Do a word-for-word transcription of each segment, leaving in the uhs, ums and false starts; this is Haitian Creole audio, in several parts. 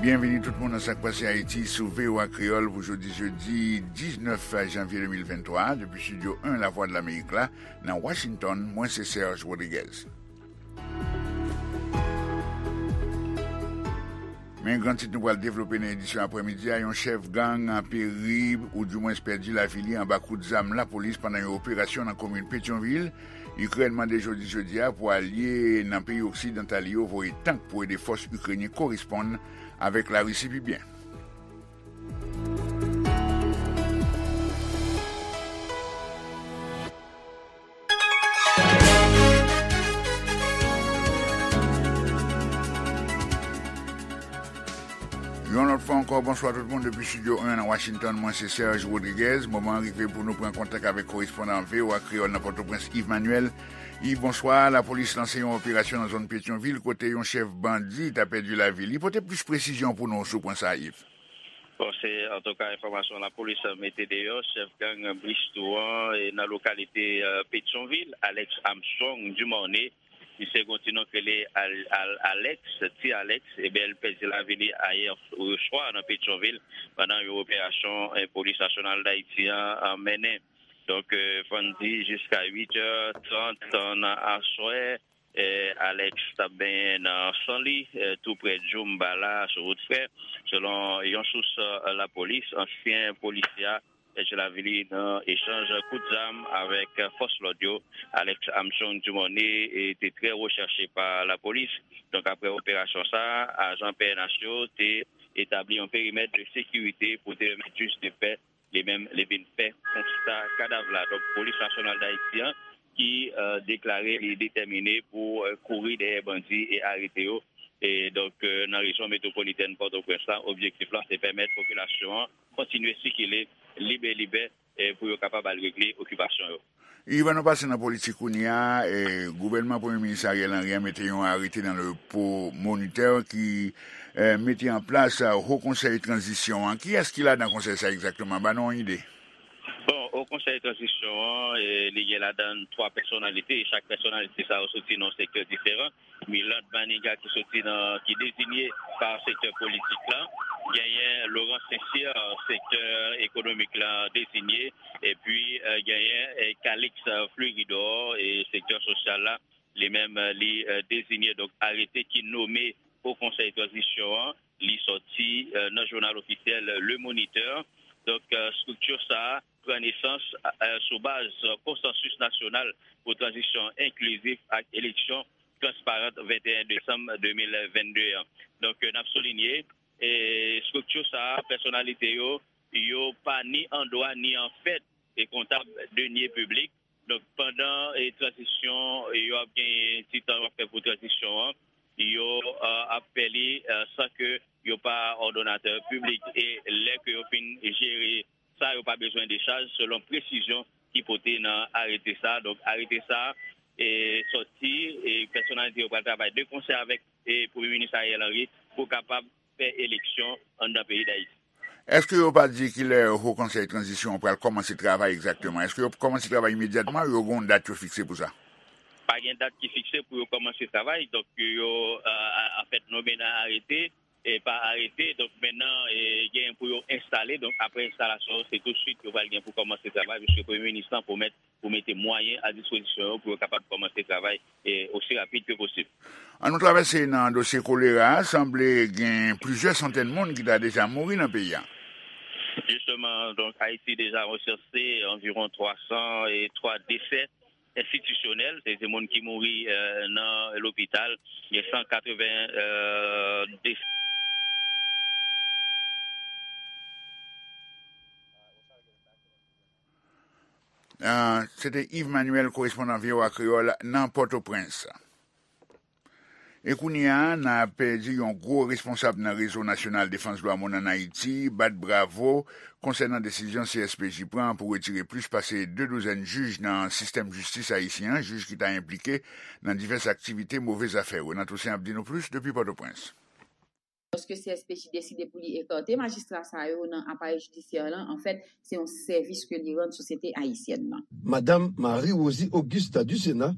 Byenvini tout moun nan Sa k Pase Ayiti sou V O A Kreyòl pou jodi jedi diznèf janvye de mil venntwa, depi Estidyo en Lavwadlamerik la, nan Washington, mwen se Serge Rodriguez. Men gran tit nou pral devlope nan edisyon aprèmidi a, yon chèf gang peri oudimwens pèdi lavi li anba kout zam lapolis pandan yon operasyon nan komin Petyonvil. Ikrèn mande jodi jedi a pou alye nan peyi oksidantal yo voye tank pou ede fòs ikrenyen koresponn avèk Larisi pi byen. Yon lòt fwa ankò, bonswa tout moun depi Estidyo en nan Washington. Mwen se Serge Rodriguez. Moman an rive pou nou pran kontak avèk korespondan V O A Kreyòl nan Pòtoprens, Yves Manuel. Yves, bonswa. Lapolis lanse yon operasyon nan zòn Petyonvil kote yon chèf bandi ta pèdi lavi li. Pote plis presizyon pou nou sou pwen sa a, Yves. Bon, se antouka enfòmasyon lapolis mete deyò, chèf gang Bristou an, e nan lokalite, e, Petyonvil, Alex Armstrong Dumornay, misye gen yon ti non k rele Al-, Al-, Alex, Ti Alex, ebyen, l pèdi lavi li ayè swa nan Petyonvil pandan yon operasyon, e, Polis Nasyonal Dayiti an, an mennen. Donk, e, fò n di jiska uit è trant nan aswè, e, Alex t ap benyen nan san li, e, tou prè Djoum Bala, sou wout Frè. Selon yon sous, e, lapolis, ansyen polisye a pèdi lavi li nan echanj kout zam avèk fòs lòd yo. Alex Armstrong Dumornay, e, te trè rechèche pa lapolis. Donk, apre operasyon sa a, ajan P N H yo te etabli yon perimèt de sekirite pou te pèmèt jij de pè li menm li vin fè konsta kadav la. Donk, Polis Nasyonal Dayiti an ki, e, deklare li detèmine pou, e, kouri dèyè bandi e arete yo. E donk, e, nan rejyon metwopolitèn Pòtoprens la, objektif la se pèmèt popilasyon an kontinye sikile libelibè, e, pou yo kapab al regle okipasyon yo. Yves, ann nou pase nan politik kounye a, e, gouvènman Premye Minis Ariel Henry an mete yon arete nan Le Po Moniteur ki, e, mete an plas, e, Ho Konsèy Tranzisyon an. Kiyès ki ladan konsèy sa egzakteman? Ban nou yon ide. Bon, Ho Konsèy Tranzisyon an, e, li gen ladan twa pèsonalite, e chak pèsonalite sa yo soti nan yon sektè diferan. Milande Manigat ki soti nan, ki dezinye pa sektè politik la, genyen Laurent St-Cyr, sektè ekonomik la dezinye, epi, e, genyen, e, Calix Fleuridor, e sektè sosyal la, li menm, e, li, e, dezinye. Donk, arete ki nome Ho Konsèy Tranzisyon an, li sòti, e, nan jounal ofisyèl Le Moniteur. Donk, e, estrikti sa a pran nesans, e, sou baz konsansis nasyonal pou tranzisyon enklizif ak eleksyon transparan venteyen desanm de mil vennde an. Donk, e, n ap soulinye, e, estrikti sa a, pèsonalite yo, yo pa ni an dwa ni an fèt e kontab deniers publics. Donk, pandan, e, tranzisyon, e, yo ap genyen ti tan yo ap fè pou tranzisyon an, yo, e, ap fè li, e, san ke yo pa òdonatè piblik. E lè ke yo fin jere sa, yo pa bezwen dechaj, selon presizyon ki pote nan arete sa. Donk, arete sa, e, sòti, e, pèsonalite yo pral travay de konsè avèk, e, Premye Minis Ariel Henry pou kapab fè eleksyon anndan peyi Dayiti. Èske yo pa di kilè Ho Konsèy Tranzisyon an pral kòmanse travay egzakteman? Èske yo kòmanse travay imedyatman? Yo gen yon dat yo fikse pou sa? Pa gen dat ki fikse pou yo kòmanse travay. Donk, yo, a, a, anfèt, nome nan arete, e pa arete. Donk, mennan, e, gen pou yo enstale. Donk, apre enstalasyon, se tousuit yo pral gen pou kòmanse travay, piske Premye Minis lan pwomèt pou mete mwayen a dispozisyon yo pou yo kapab kòmanse travay, e, osi rapid ke posib. An nou travèse nan dosye kolera a, sanble gen plizyè santèn moun ki ta deja mouri nan peyi a. Jisteman, donk, Ayiti deja ansanse anviwon twa san e twa desè enstitisyonèl, se, se moun ki mouri, e, nan lopital, gen san katreven, e, desè. Ah, se te Yves Manuel, korespondan V O A Kreyòl nan Pòtoprens. E kounye a, n ap di yon gwo responsab nan Rezo Nasyonal Defans Dwa Moun ann Ayiti, bat bravo konsènan desizyon C S P J pran pou retire plis pase de douzèn jij nan sistèm jistis ayisyen an, jij ki ta enplike nan divès aktivite move zafè. Renan Toussaint ap di nou plis depi Pòtoprens. Lòske C S P J deside pou li ekate majistra sa yo nan aparèy jidisyè lan, anfèt, se yon sèvis ke li rann sosyete ayisyèn nan. Madanm Marie Rosie Augusta Ducéna,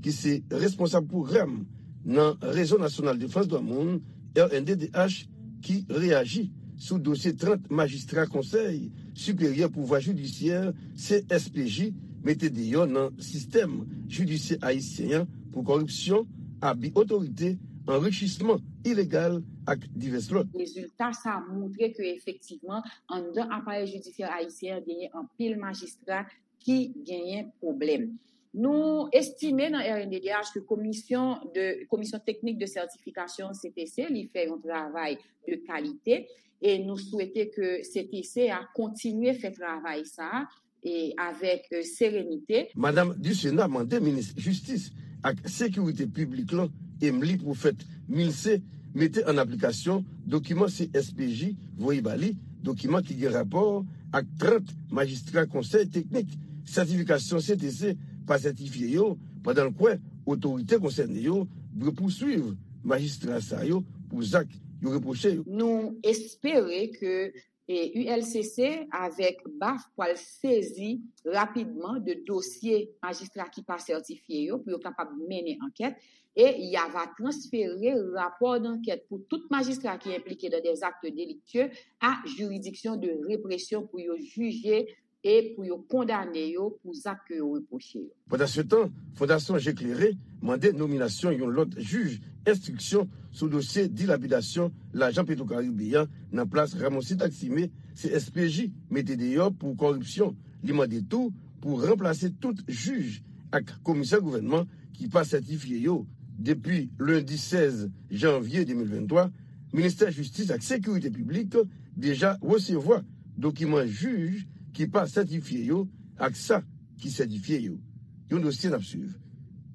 ki se responsab pwogram nan Rezo Nasyonal Defans Dwa Moun, R N D D H, ki reyaji sou dosye trant majistra Konsèy Siperyè Pouvwa Jidisyè, C S P J, mete deyò nan sistèm jidisyè ayisyen an pou kòripsyon, abi otorite, anrichisman ilegal ak divès lòt. Rezilta sa a montre ke efektivman, anndan aparèy jidisyè ayisyen an genyen anpil majistra ki genyen pwoblèm. Nou estime nan R N D D H ke komisyon de, Commission Technique de Certification, C T C, li fè yon travay de kalite e nou swete ke C T C a kontinye fè travay sa a e avèk, e, serenite. Madam Ducena mande minis jistis ak sekirite piblik lan, Emely Prophète Milcé, mete an aplikasyon dokiman C S P J voye ba li, dokiman ki gen rapò ak trant majistra konsèy teknik sètifikasyon C T C pa sètifye yo, pandan l kwè otorite konsène yo dwe pouswiv majistra sa yo pou zak yo repwoche yo. Nou espere ke, e, U L C C avèk baf pral sezi rapidman de dosye majistra ki pa sètifye yo pou yo kapab mennen ankèt e y ava transfere rapò d'ankèt pou tout majistra ki enplike dans des actes délictueux à juridiction de répression pou yo jije e pou yo kondane yo pou zak ke yo repwoche yo. Pandansetan, Fondasyon Je Klere mande nominasyon yon lòt jij enstriksyon sou dosye dilapidasyon lajan Petwokaribe a nan plas Ramoncito Aximé, C S P J mete deyò pou kòripsyon. Li mande tou pou ranplase tout jij ak komisè gouvènman ki pa sètifye yo. Depi lendi sèz janvye de mil venntwa, Ministè Jistis ak Sekirite Piblik deja resevwa dokiman jij ki pa sètifye yo ak sa ki sètifye yo. Yon dosye n ap swiv.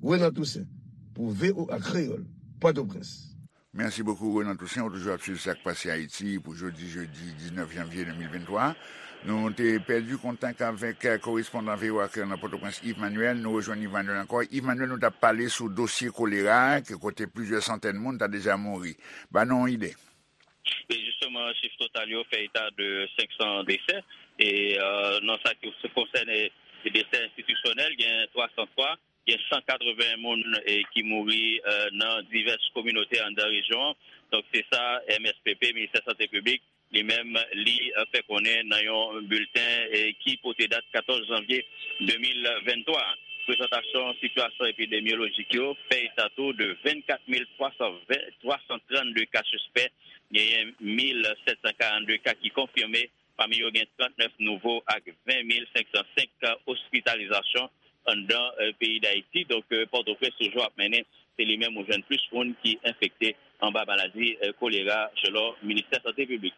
Renan Toussaint, pou V O A Kreyòl, Pòtoprens. Mèsi bokou, Renan Toussaint. Ou toujou ap swiv sa k pase Ayiti pou jodi, jedi diznèf janvye de mil venntwa. Nou te pèdi kontak avèk, eh, korespondan V O A Kreyòl nan Pòtoprens, Yves Manuel. Nou rejwenn Yves Manuel ankò. Yves Manuel, nou t ap pale sou dosye kolera a, ke kote plizyè santèn moun ta deja mouri. Ba nou yon ide. E jisteman, chif total yo fè eta de senk san desè. E, euh, nan sa ki konsène desè enstitisyonèl, gen twa san twa, gen san katreven moun, e, ki mouri, euh, nan divès kominote anndan rejyon an. Donk, se sa M S P P, Ministè Sante Piblik, li menm, li, euh, fè konnen nan yon bilten, e, ki pote dat katòz janvye de mil venntwa. Prezantasyon sitiyasyon epidemyolojik yo fè eta tou de vennkat mil twa san ven, twa san trannde ka sispè, genyen mil sèt san karannde ka ki konfime, pami yo gen trannèf nouvo ak ven mil senk san senk ka ospitalizasyon anndan, eh, peyi Dayiti. Donk, eh, Pòtoprens toujou ap mennen, se li menm ou jwenn plis moun ki enfekte anba maladi, eh, kolera, selon Ministè Sante Piblik.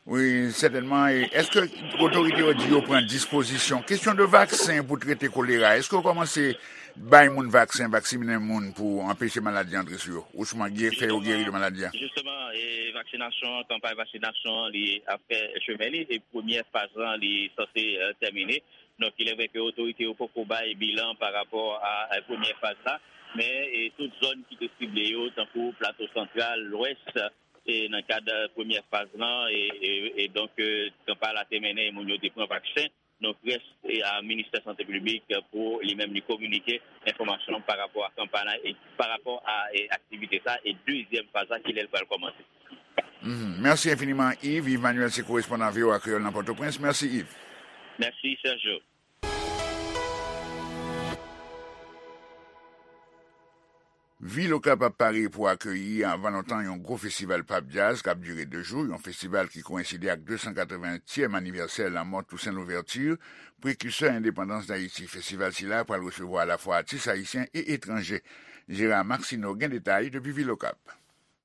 Wi, sètènman. E èske otorite yo di yo pran dispozisyon? Kesyon de vaksen pou trete kolera, èske yo kòmanse bay moun vaksen, vaksinen moun pou anpeche maladi antre sou yo, osnon fè yo geri de maladi a? Jisteman, e vaksinasyon, kanpay vaksinasyon, li ap fè chemen li, e premyè faz lan, li sanse, eh, tèmine. Donk, il est vrai ke otorite yo poko bay bilan pa rapò a, a premyè faz la, men, e tout zòn ki te sible yo, tankou Plato Santral, Lwès, e nan kad, eh, premyè faz lan, e, e, e donk, eh, kanpay la te mennen, e moun yo te pran vaksen. Donk, rès, e, a Ministè Sante Piblik pou li menm li kominike enfòmasyon pa rapò a kanpay la e pa rapò a, e, aktivite sa e dezyèm faz la, kilè l pral kòmanse. Mhm. Mèsi enfiniman, Yves. Yves Manuel, se korespondan V O A Kreyòl nan Pòtoprens. Mèsi, Yves. Mèsi, Sergio. Vil Okap ap pare pou akeyi anvan lontan yon gwo festival pop jazz k ap dire de jou, yon festival ki koyenside ak de san katreventyèm anivèsè lanmò Toussaint Louverture, prekisè endepandans Dayiti. Festival sila pral resevwa alafwa atis ayisyen e etranje. Gérard Maxineau gen detay depi Vil Okap.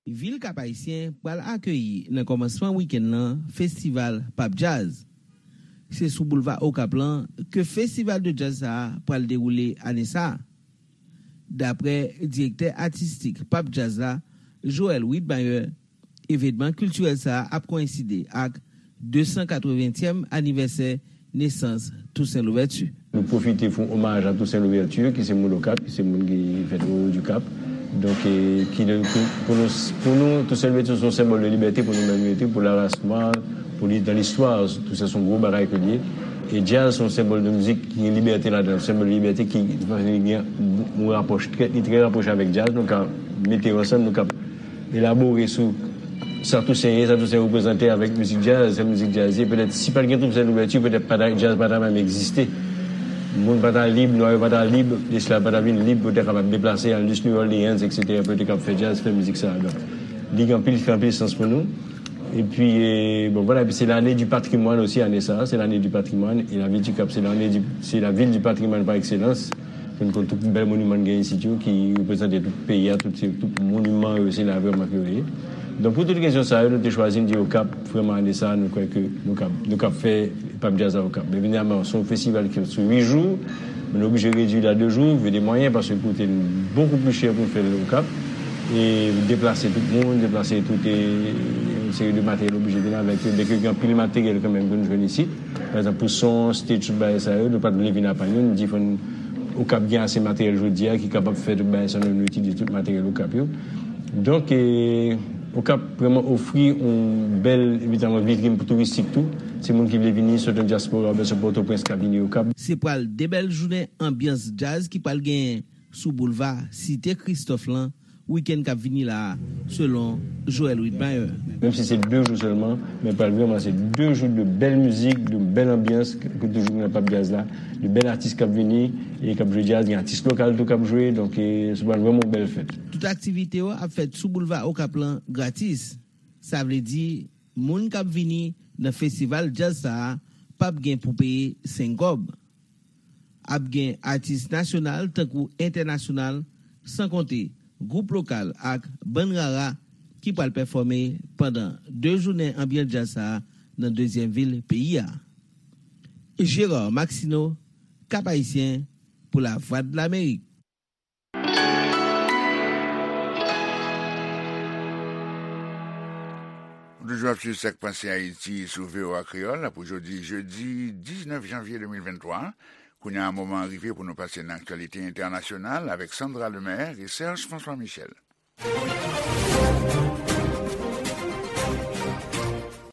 Vil Kap Ayisyen pral akeyi nan kòmansman wikenn nan festival pop jazz. Se sou boulva Okap lan ke festival de jazz sa a pral dewoule ane sa a. Daprè direktè atistik pop jazz la, Joël Widmayer, evenman kiltirèl sa a ap koyenside ak de san katreventyèm anivèsè nesans Toussaint Louverture. Nou pwofite fè yon omaj a Toussaint Louverture, ki se moun Okap, ki se moun ki fèt o Haut du Cap. Donk, e, ki, pou, pou nou, pou nou, Toussaint Louverture se yon senbòl de libète pou nou menm, pou laras nwa, pou li, dans l'histoire, Toussaint se yon gwo bagay ke l ye. E jazz se yon senbòl de mizik ki gen libète ladan l, senbòl de libète ki, ki gen yon rapòch trè, li trè rapwoche avèk jazz. Nou ka mete yo ansanm, nou ka elabore sou Sa Tousen ye, sa Tousen reprezante avèk mizik djaz, sa mizik djaz ye. Petèt, si pa t gen Tousen Louverture, petèt pa ta, djaz pa ta menm egziste. Moun pa ta lib, nwa yo pa ta lib, esklav pa ta vin lib pou yo te kapab deplase, al jis New Orleans, et cetera, pou yo te kapab fè djaz, fè mizik sa a. Donk, li gen anpil, anpil sans pou nou. Epi, e, bon, vwala, epi se lane di patrimwàn osi, ane sa a, se lane di patrimwàn, e lavil di Kap, se lane di, se lavil di patrimwàn pa ekselans. Pou n konn tout bèl moniman n gen isit yo, ki reprezante tout peyi a, tout, se, tout moniman yo, se la vrèman ke yo ye. Donk, pou tout rezon sa yo, nou te chwazi, n di Okap, vrèman, ane sa a, nou kwè ke nou kab, nou kab fè Pap Djaz a Okap. Men evidaman, se yon festival ki sou uit jou, men nou oblije redui l a de jou, vide mwayen, paske l koute n bokou pli chè pou n fè l Okap. E deplase tout moun, deplase tout, e, yon seri de materyèl oblije vin avèk yo. Byenke gen anpil materyèl kanmenm ke nou jwenn isit. Pa egzanp, pou son, stage, tout bagay sa yo, nou pa t vle vin apa nou. Nou di fò n, Okap gen ase materyèl jodi a ki kapab fè tout bagay sa, nou, nou itilize tout materyèl Okap yo. Donk, e, Okap vrèman ofri yon bèl, evidaman, vitrin pou touristik tou. Se moun ki vle vini, sot nan dyaspora, oubyen sot Pòtoprens, k ap vini Okap. Se pral de bèl jounen anbyans djaz ki pral genyen sou boulva Site Kristòf lan, wikenn k ap vini la a, selon Joel Widmaier. Menm si se de jou sèlman, men pral vrèman se de jou de bèl mizik, de bèl anbyans, ke toujou gen nan Pap Djaz la, de bèl atis k ap vini, e k ap jwe djaz, gen atis lokal tou k ap jwe, donk, e, se pral vrèman yon bèl fèt. Tout aktivite yo ap fèt sou boulva Okap lan gratis. Sa vle di, moun k ap vini nan festival djaz sa a p ap gen pou peye senk kòb. Ap gen atis nasyonal tankou entènasyonal, san konte gwoup lokal ak bann rara ki pral pèfòme pandan de jounen anbyans djaz sa a nan dezyèm vil peyi a. Gérard Maxineau, Cap-Haïtien, pou Lavwadlamerik. Ou toujou ap swiv Sak Pase Ayiti sou V O A Kreyòl pou jodi jedi diznèf janvye de mil venntwa. Kounye a, moman an rive pou nou pase nan aktyalite entènasyonal avèk Sandra Lemaire e Serge François Michel.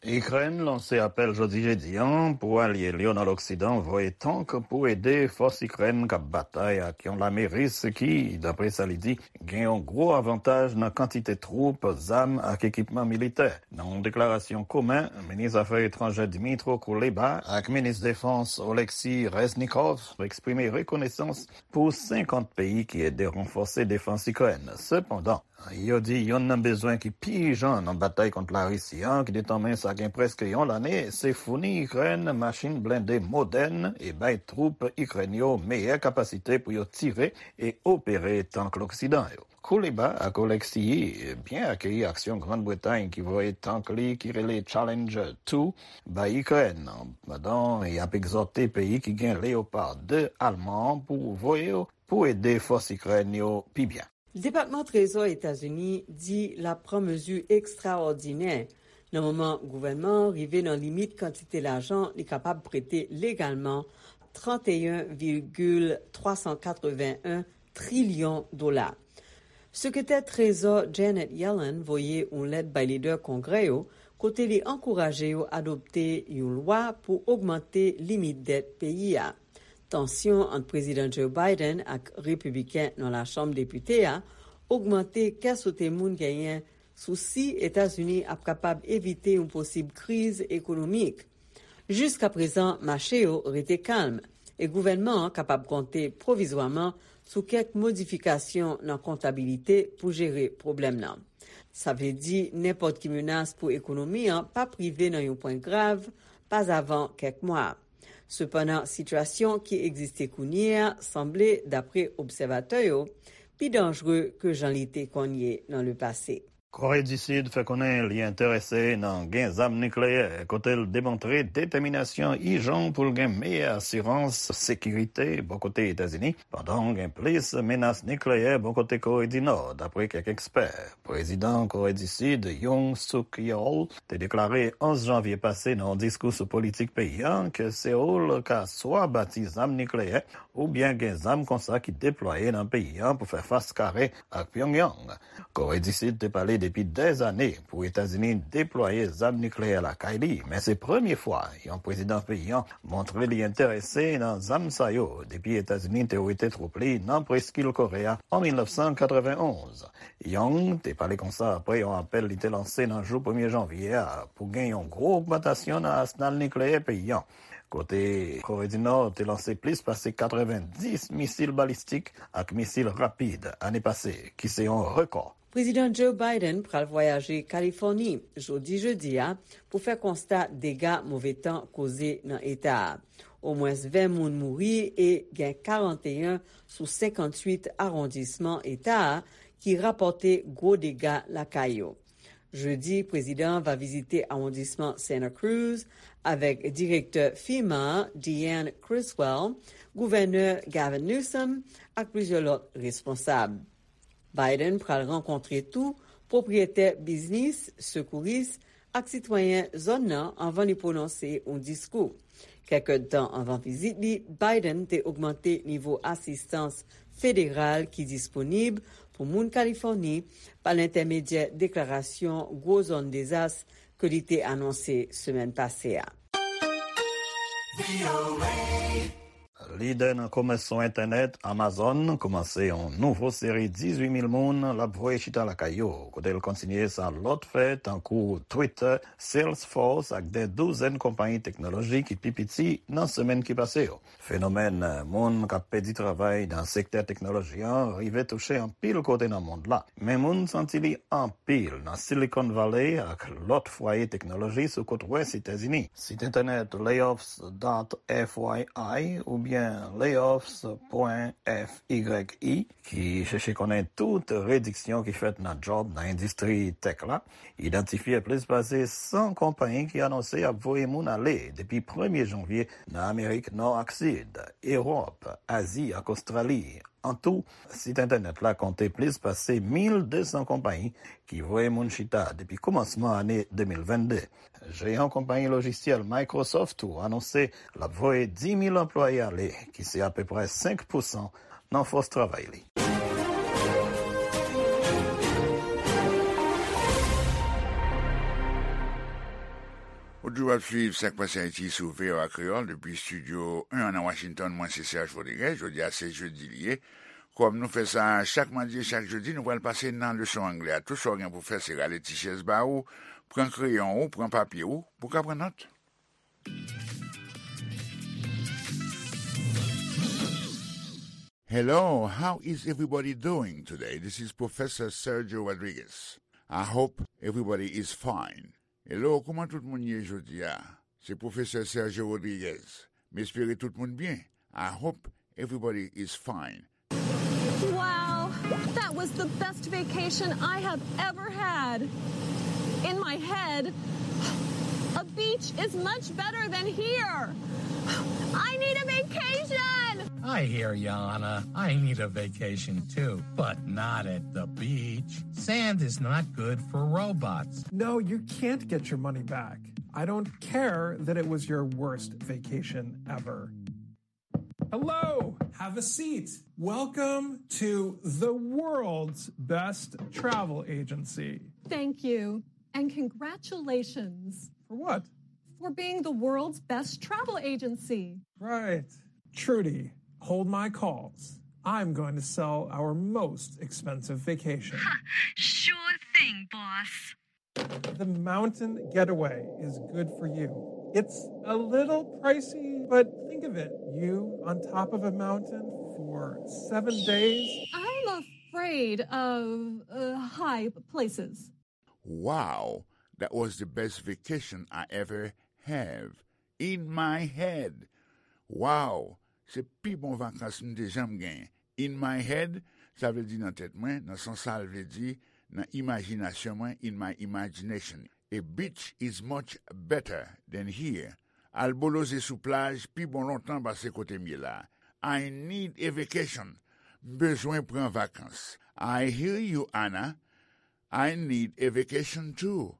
Ikrèn lanse apèl jodi jedi an pou alye l yo nan Loksidan voye tank pou ede fòs Ikrèn k ap batay ak yon lame ris ki, dapre sa li di, gen yon gwo avantaj nan kantite twoup, zam ak ekipman militè. Nan yon deklarasyon komen, minis afè etranjè Dmytro Kuleba ak minis defans Oleksiy Reznikov eksprime rekonesans pou senkant peyi ki ede ranfòse defans Ikrèn. Sepandan, yo di youn nan bezwen ki pi ijan nan batay kont Larisi an, ki detanmen sa gen prèske yon lane, se founi Ikrèn machin blende modèn e bay twoup Ikrèn yo meyè kapasite pou yo tire e opere tank Loksidan yo. Kuleba ak Oleksiy byen akeyi aksyon Grann Bretay ki voye tank li ki rele Challenger two bay Ikrèn, pandan y ap egzòte peyi ki gen Leopard de alman an pou voye yo pou ede fòs Ikrèn yo pi byen. Depatman Trezò Etazini di l ap pran mezi ekstraòdinè nan moman gouvènman an rive nan limit kantite lajan li kapab prete legalman, trant e en vigil twa san katreven en trilyon dola. Sekretè Trezò Janet Yellen voye yon lèt bay lidè Kongrè yo kote li ankouraje yo adopte yon lwa pou ogmante limit dèt peyi a. Tansyon ant Prezidan Joe Biden ak Repibliken nan Lachanm Depite a ogmante kè sote moun genyen sou si Etazini ap kapab evite yon posib kriz ekonomik. Jiskaprezan, mache yo rete kalm e gouvènman an kapab konte pwovizwaman sou kèk modifikasyon nan kontabilite pou jere pwoblèm nan. Sa vle di nenpòt ki menas pou ekonomi an p ap rive nan yon pwen grav pazavan kèk mwa. Sepandan, sitiyasyon ki egziste kounye a sanble, dapre obsèvatè yo, pi danjre ke jan li te konn ye nan lepase. Kore di Sid fè konnen li enterese nan gen zam nikleyè, kote l demontre detèminasyon ijan pou l gen meyè asirans sekirite bò kote Etazini, pandan gen plis menas nikleyè bò kote Kore di Nò, dapre kèk ekspè. Prezidan Kore di Sid, Yoon Suk Yeol, te deklare onz janvye pase nan yon diskou sou politik peyi a ke Seoul ka swa bati zam nikleyè oubyen gen zam konsa ki deplwaye nan peyi a pou fè fas kare ak Pyongyang. Kore di Sid te pale depi dèzane pou Etazini deplwaye zam nikleyè lakay li, men se premye fwa yon prezidan peyi an montre li enterese nan zam sa yo depi Etazini te wete twoup li nan preskil Kore a an mil nèf san katrevenn onz. Young te pale konsa apre yon apèl li te lanse nan jou premye janvye a pou gen yon gwo ogmantasyon nan asnal nikleyè peyi an, kote Kore di Nò te lanse plis pase katrevenndis misil balistik ak misil rapid ane pase, ki se yon rekò. Prezidan Joe Biden pral vwayaje Kalifòni jodi jedi a pou fè konsta dega move tan koze nan eta a. Omwens ven moun mouri e gen karanteyen sou senkanntuit awondisman eta a ki rapòte gwo dega lakay yo. Jedi, prezidan an va vizite awondisman Santa Cruz avèk direktè FEMA, Deanne Criswell, gouvènè Gavin Newsom ak plizyè lòt responsab. Biden pral rankontre tou pwopriyetè biznis, sekouris ak sitwayen zòn nan anvan li pwononse yon diskou. Kèk èdtan anvan vizit li, Biden te ogmante nivo asistans federal ki disponib pou moun Kalifòni pa lentèmedyè deklarasyon gwo zòn dezas ke li te anonse semèn pase a. Lidè nan komès sou entènèt, Amazon kòmanse yon nouvo seri dizuit mil moun l ap voye chita lakay yo, kote l kontinye sa lòt fè tankou Twitter, Salesforce ak de douzèn konpayi teknoloji ki pi piti nan semèn ki pase yo. Fenomèn moun k ap pèdi travay nan sektè teknoloji an rive touche anpil kote nan mond la, men moun santi li anpil nan Silicon Valley ak lòt fwaye teknoloji sou kot wès Etazini. Sit entènèt layoffs dot F Y I oubyen layoffs pwen F Y I, ki chèche konnen tout rediksyon ki fèt nan djòb nan endistri tech la, idantifye plis pase san konpayi ki anonse y ap voye moun ale depi premye janvye nan Amerik Nò ak Sid, Ewòp, Azi ak Ostrali. An tou, sit entènèt la konte plis pase mil de san konpayi ki voye moun chita depi kòmansman ane de mil vennde. Jeyan konpayi lojisyèl Microsoft tou anonse l ap voye dis mil anplwaye ale, ki se apeprè senk pousan nan fòs travay li. Ou toujou ap swiv Sak Pase Ayiti sou V O A Kreyòl depi estidyo en an nan Washington. Mwen se Serge Rodriguez. Jodi a se jedi li ye. Kòm nou fè sa chak madi e chak jedi, nou pral pase nan leson anglè a. Tou sa w gen pou fè se rale ti chèz ba ou, pran kreyon ou, pran papye ou, pou w ka pran nòt. Hello, how is everybody doing today? This is Professor Sergio Rodriguez. I hope everybody is fine. Hello, kòman tout moun ye jodi a? Se Pwofesè Sergio Rodriguez. M espere tout moun byen. I hope everybody is fine. Wow, that was the best vacation I have ever had. In my head, a beach is much better than here. I need a vacation. I hear ya, Anna. I need a vacation too, but not at the beach. Sand is not good for robots. No, you can't get your money back. I don't care that it was your worst vacation ever. Hello, have a seat. Welcome to the world's best travel agency. Thank you, and congratulations. For what? For being the world's best travel agency. Right. Trudy, hold my calls. I'm going to sell our most expensive vacation. Sure thing, boss. The mountain getaway is good for you. It's a little pricey, but think of it. You on top of a mountain for seven days. I'm afraid of uh, high places. Wow, that was the best vacation I ever have. In my head. Wow, se pi bon vakans m te janm genyen. In my head, sa vle di nan tèt mwen, nan sans sa l vle di, nan imajinasyon mwen, in my imagination. A beach is much better than here. Al boloze sou plaj pi bon lontan pase kote m ye la. I need a vacation. M bezwen pran vakans. I hear you, Anna. I need a vacation too.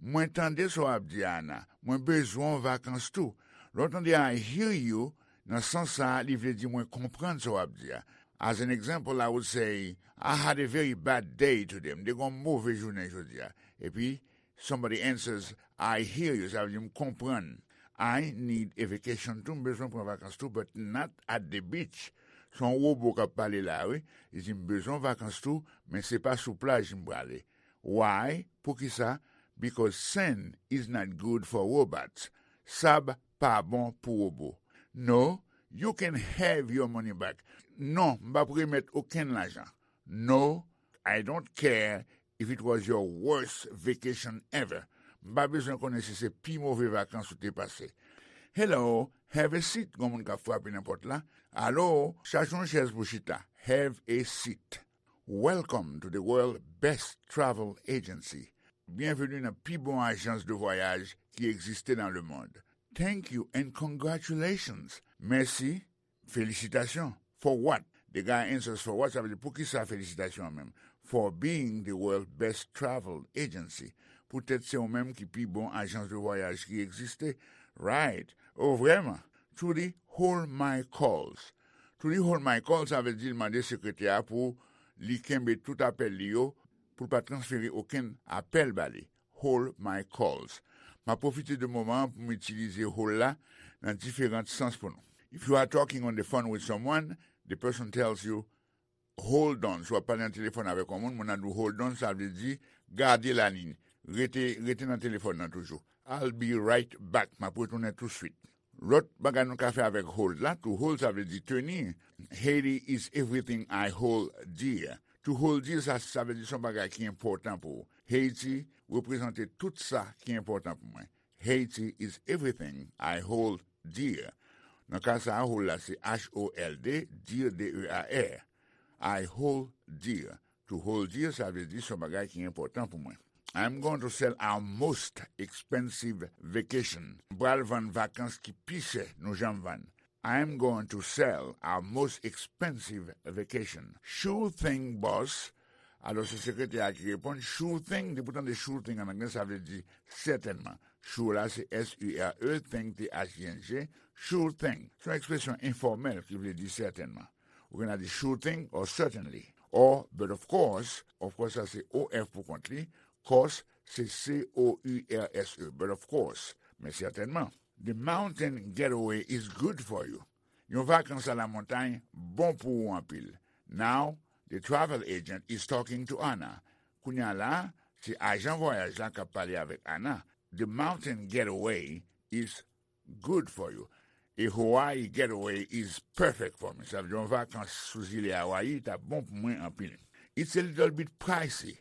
Mwen tande sa w ap di a, Anna. Mwen bezwen yon vakans tou. Lè w tande I hear you, nan sans sa a, li vle di mwen konprann sa w ap di a. As an example, I would say, I had a very bad day today. M te gen yon move jounen jodi a. Epi, somebody answers, I hear you. Sa vle di, m konprann. I need a vacation too. M bezwen pran vakans tou, but not at the beach. Se yon wobo k ap pale la, wi. Li di, m bezwen vakans tou, men se pa sou plaj m prale. Why? Poukisa? Because sand is not good for robots. Sab pa bon pou wobo. No, you can have your money back. Non, m p ap remèt okenn lajan. No, I don't care if it was your worst vacation ever. M pa bezwen konnen si se pi move vakans ou te pase. Hello, have a seat, gon moun k ap frape nan pòt la. Alo, chache yon chèz pou chita. Have a seat. Welcome to the world best travel agency. Byenveni nan pi bon ajans de vwayaj ki egziste nan lemond. Thank you and congratulations. Mèsi, felisitasyon. For what? The guy answers, for what? Sa vle di, poukisa felisitasyon an menm? For being the world best travel agency. Poutèt se ou menm ki pi bon ajans de vwayaj ki egziste. Right. Oh, vrèman? Trudy, hold my calls. Trudy, hold my calls, sa vle di l mande sekretè a pou li kenbe tout apèl li yo, pou l pa transfere okenn apèl ba li. Hold my calls. M ap pwofite de moman an pou m itilize hold la nan diferan sans pou nou. If you are talking on the phone with someone, the person tells you, hold on. Si w ap pale nan telefòn avèk yon moun, moun nan di w hold on, sa vle di gade laliny. Rete, rete nan telefòn nan toujou. I'll be right back. M ap retounen touswit. Lòt bagay nou ka fè avèk hold la, to hold, sa vle di teni. Haiti is everything I hold dear. To hold dear, sa, sa vle di se yon bagay ki enpòtan pou ou. Haiti reprezante tout sa ki enpòtan pou mwen. Haiti is everything I hold dear. Nan ka sa a, hold la se H O L D, dear, D E A R. I hold dear. To hold dear, sa vle di se yon bagay ki enpòtan pou mwen. I'm going to sell our most expensive vacation. M pral vann vakans ki pi chè nou janm vann. I'm going to sell our most expensive vacation. Sure thing, boss. Alò, se sekretè a ki reponn, sure thing. Depi w tande sure thing an anglè, sa vle di sètènman. Sure la, se S U R E, thing, T H I N G. Sure thing. Se yon ekspresyon enfòmèl ki vle di sètènman. Ou gen a di sure thing or certainly. Or, but of course, of course, sa se O F pou kont li. Course, se C O U R S E. But of course, men sètènman. The mountain getaway is good for you. Yon vakans a la montay bon pou ou anpil. Now, the travel agent is talking to Anna. Kounye a la, se ajan vwayaj la k ap pale avèk Anna. The mountain getaway is good for you. A Hawaii getaway is perfect for me. Sa vle di yon vakans sou zile Hawaii t ap bon pou mwen anpil. It's a little bit pricey.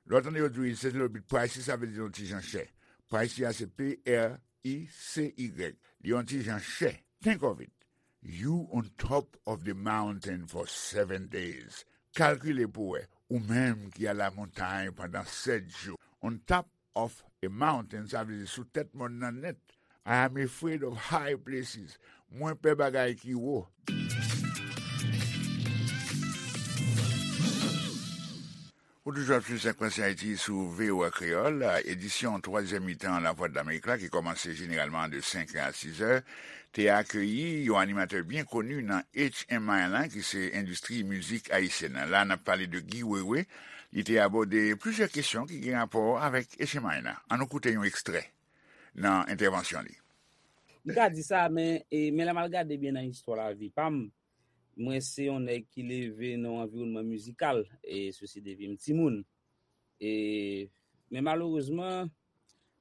Lè w tande yo di w it's a little bit pricey, sa vle di yon ti jan chè. Pricey a se P R I C Y. Li yon ti jan chè. Think of it. You on top of the mountain for seven days. Kalkile pou w wè, ou menm ki a la montagne pandan sèt jou. On top of a mountain, sa vle di sou tèt mòn nan nèt. I am afraid of high places. Mwen pè bagay ki wo. Ou toujou ap swiv Sa k pase Ayiti sou V O A Kreyòl, edisyon twazyèm mitan Lavwadlamerik la ki kòmanse jeneralman de senk è a sis è, te akeyi yon animatè byen koni nan H M I la, ki se endistri mizik ayisyèn nan. La, n ap pale de Guy Wewe. Li te abòde plizyè kesyon ki gen rapò avèk H M I la. Ann nou koute yon ekstrè nan entèvansyon li. M ka di sa, men, e, men lè m al gade byen nan istwa lavi pa m, mwen se yon nèg ki leve nan yon anviwònman mizikal, e, sesi depi m timoun. E, men malerezman,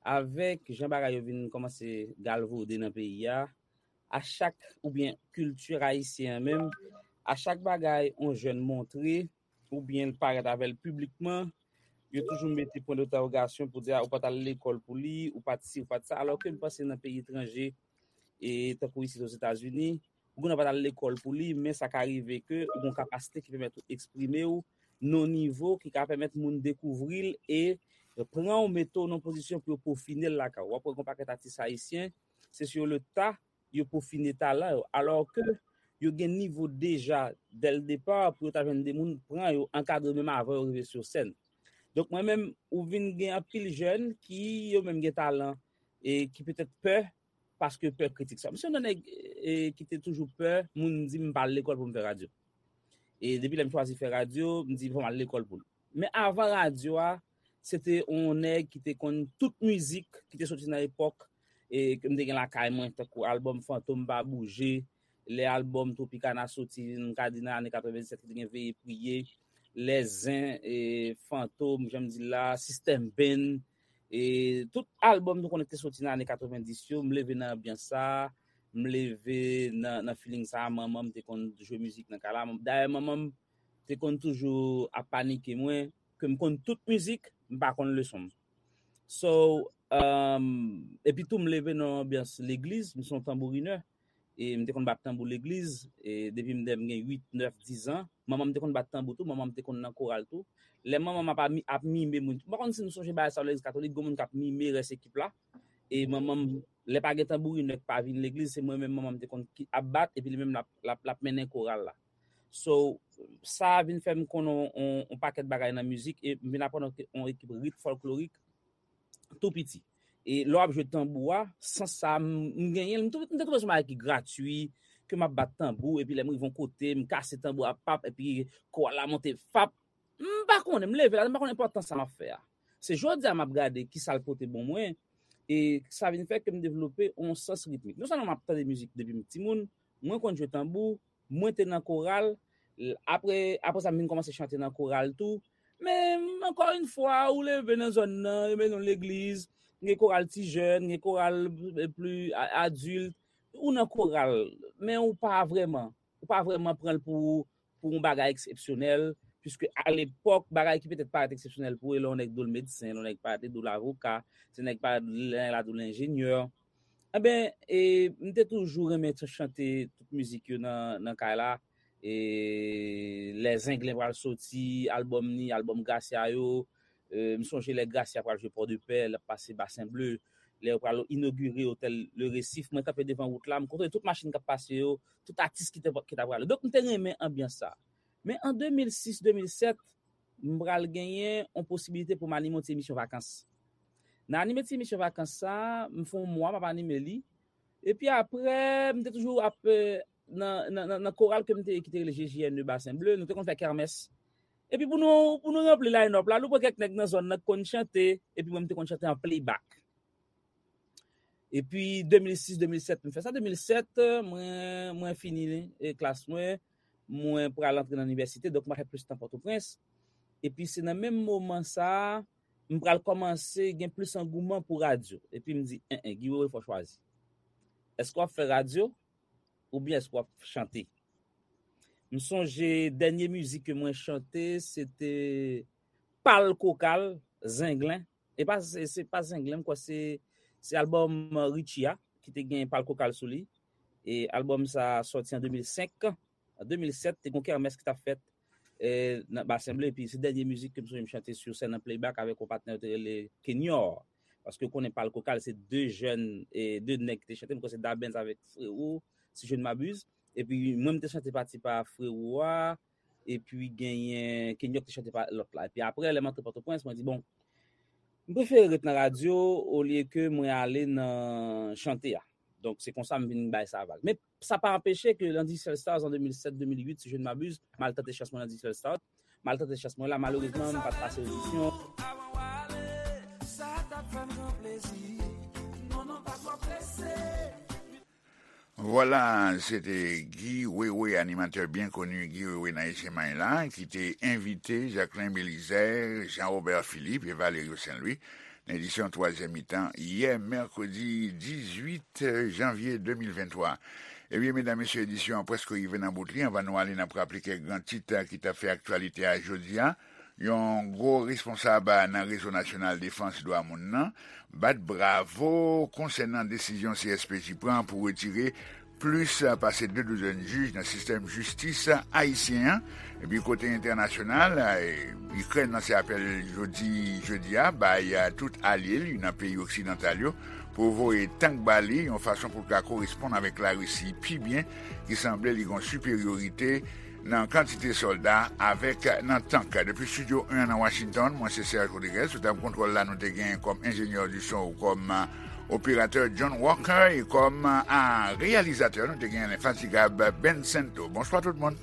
avèk jan bagay yo vin kòmanse galvode nan peyi a, a chak, oubyen kilti ayisyen an menm, a chak bagay yon jèn montre, oubyen l parèt avè l piblikman, yo toujou mete pwen dentèwogasyon pou di, a, ou pa t al lekòl pou li, ou pa t si, ou pa t sa, alò ke m panse nan peyi etranje, e tankou isit Ozetazini, ou gen dwa pa t al lekòl pou li, men sa ka rive ke ou gen yon kapasite ki pèmèt ou eksprime w nan yon nivo ki ka pèmèt moun dekouvri l e pran w, mete w nan yon pozisyon pou yo pofine l lakay ou. W ap wè gen yon pakèt atis ayisyen, se sur le tas, yo pofine talan yo, alò ke yo gen nivo deja dè l depa pou yo ta jwenn de moun pran yo, ankadre menm avan yo rive sou sèn. Donk mwen menm, ou vin gen anpil jèn ki yo menm gen talan e ki petèt pè paske pè kritik sa. M se yon nèg e, ki te toujou pè moun di m pa al lekòl pou m fè radyo. E depi lè m chwazi fè radyo, m di fò m al lekòl pou l. Men avan radyo a, se te yon nèg ki te konn tout mizik ki te soti nan epòk e ke m te gen lakay mwen, tankou albòm Fantom Pa Bouje, lè albòm Tropicana soti, m ka di nan ane katrevennsèt, ki te gen Veye Priye, Lè Zen, e, Fantom, jan m di l la, System Band, e tout albòm nou konnen ki te soti nan ane katrevendis yo, m leve nan anbyans sa, m leve nan, nan feeling sa, manman m te konn jwe mizik nan kay la. Dayè, manman m te konn toujou ap panike mwen, ke m konn tout mizik, m pa konn leson m. So, um, epi tou m leve nan anbyans legliz, m se yon tanbourinè, e m te konn bat tanbou legliz, e depi m, m gen uit, nèf, diz an. Manman m te konn bat tanbou tou, manman m te konn nan koral tou. Lè manman m ap, ap mime moun, m pa konn si nou sonje bagay sa yo legliz katolik, gen moun k ap mime rès ekip la. E manman m, lè pa gen tanbourinè k pa vin legliz, se mwen menm manman m te konn ki ap bat, epi li menm l ap, l ap, l ap mennen koral la. So, sa vin fè m konn on, on, on pakèt bagay nan mizik, e m vin aprann on, on ekip rit fòlklorik tou piti. E lè w ap jwe tanbou a, sans sa, m, m genyen l, m tou-, m te twouve se yon bagay ki gratui, ke m ap bat tanbou, epi lè m rive yon kote, m kase tanbou a, pap, epi koral la monte, fap. M pa konnen, m leve la, m pa konn enpòtans sa m ap fè a. Se jodi a m ap gade ki sa l pote ban mwen, e sa vin fè ke m devlope yon sans ritmik. Non sèlman m ap tande mizik depi m timoun, mwen konn jwe tanbou, mwen te nan koral, l-, apre, apre sa, m vin kòmanse chante nan koral tou. Men, ankò yon fwa, ou leve nan zòn nan, yo mennen w legliz, gen koral ti jèn, gen koral, eh, pli a-, adilt, ou nan koral, men ou pa vrèman, ou pa vrèman pran l pou, pou yon bagay eksepsyonèl, piske alepòk, bagay ki petèt parèt eksepsyonèl pou ou, lè yon nèg dwe l medsen, lè yon nèg parèt dwe l avoka, se nèg parèt lè la dwe l enjenyè. Enben, e, m te toujou renmen t-, chante tout mizik yo nan, nan kay la. E, Lè Zenglen pral soti, albòm ni, albòm Gracia yo. E, m sonje lè Gracia pral jwe Pòdepè, l ap pase Basen Ble. Lè yo pral inogire otèl Le Récif, mwen kanpe devan wout la, m kontwole tout machin k ap pase yo, tout atis ki te, ki t ap prale. Donk, m te renmen anbyans sa. Men an de mil sis, de mil sèt, m pral genyen yon posibilite pou m anime yon ti emisyon vakans. Nan anime ti emisyon vakans sa, m fè yon mwa m ap anime li. Epi apre, m te toujou ap, eh, nan, nan, nan, nan koral ke m te ye ki te rele G J N E Basen Ble, nou te konn fè kèmès. Epi pou nou, pou nou ranpli line-up la, nou pran kèk nèg nan zòn nan ki konn chante, epi mwen m te konn chante an playback. Epi de mil sis, de mil sèt, m fè sa. De mil sèt, mwen, mwen fini, eh, klas mwen, mwen pral antre nan inivèsite, donk mwen fè plis tan Pòtoprens. Epi se nan menm moman sa, m pral kòmanse gen plis angouman pou radyo. Epi m di, en, en, Guy Wewe, fò w chwazi. Èske w ap fè radyo oubyen èske w ap chante? M sonje dènye mizik ke mwen chante, se te Pal Kokal, Zenglen. E pa, se, se pa Zenglen, m kwè se, se albòm, eh, Richie a, ki te gen Pal Kokal sou li. E albòm sa sòti an de mil senk. An de mil sèt, te gen yon kèmès ki t ap fèt, eh, nan Basen Ble, epi se dènye mizik ke m sonje m chante sou sèn an playback avèk yon patnè yo te rele Kenyor. Paske w konnen Pal Kokal, se de jèn, eh, de nèg ki te chante, m kwè se Dabens avèk Frewo, si je ne m'abuse. Epi mwen, m te chante pati pa Frewo a, epi genyen Kenyor ki te chante pa lòt la. Epi apre, lè m antre Pòtoprens, mwen di, bon, m prefere ret nan radyo olye ke mwen ale nan chante a. Donk, se konsa m vin bay sa vag. Men sa pa anpeche ke nan Digital Stars an de mil sèt, de mil uit, si je ne m'abuse, m al tante chans mwen nan Digital Stars. M al tante chans mwen la, malerezman, m pa t pase odisyon. Vwala, se te Guy Wewe, animatè byen koni, Guy Wewe nan Echenmay la, ki te envite Jacquelin Belizaire, Jean Robert Philippe e Valerio Saint Louis nan edisyon twazyèm mitan yè mèkredi dizuit janvye de mil venntwa. Ebyen, medam, mesye, edisyon an prèske rive nan bout li. Anvan nou ale, n ap raple kèk gran tit ki t ap fè aktyalite a jodi a. Yon gwo responsab nan Rezo Nasyonal Defans Dwa Moun nan bat bravo konsènan desizyon C S P J pran pou retire plis pase de douzèn jij nan sistèm jistis ayisyen an. Epi kote entènasyonal, Ikrèn lanse apèl jodi, jedi a, bay tout alye li nan peyi oksidantal yo pou voye tank ba li, yon fason pou l ka koresponn avèk Larisi pi byen, ki sanble li gen yon siperyorite nan kantite sòlda avèk nan tank. Depi estidyo en nan Washington, mwen se Serge Rodriguez, sou tab kontwòl la nou te gen kòm enjenyè di son, kòm operatè John Walker, e kòm a reyalizatè nou te gen lenfatigab Ben Sento. Bonswa tout moun.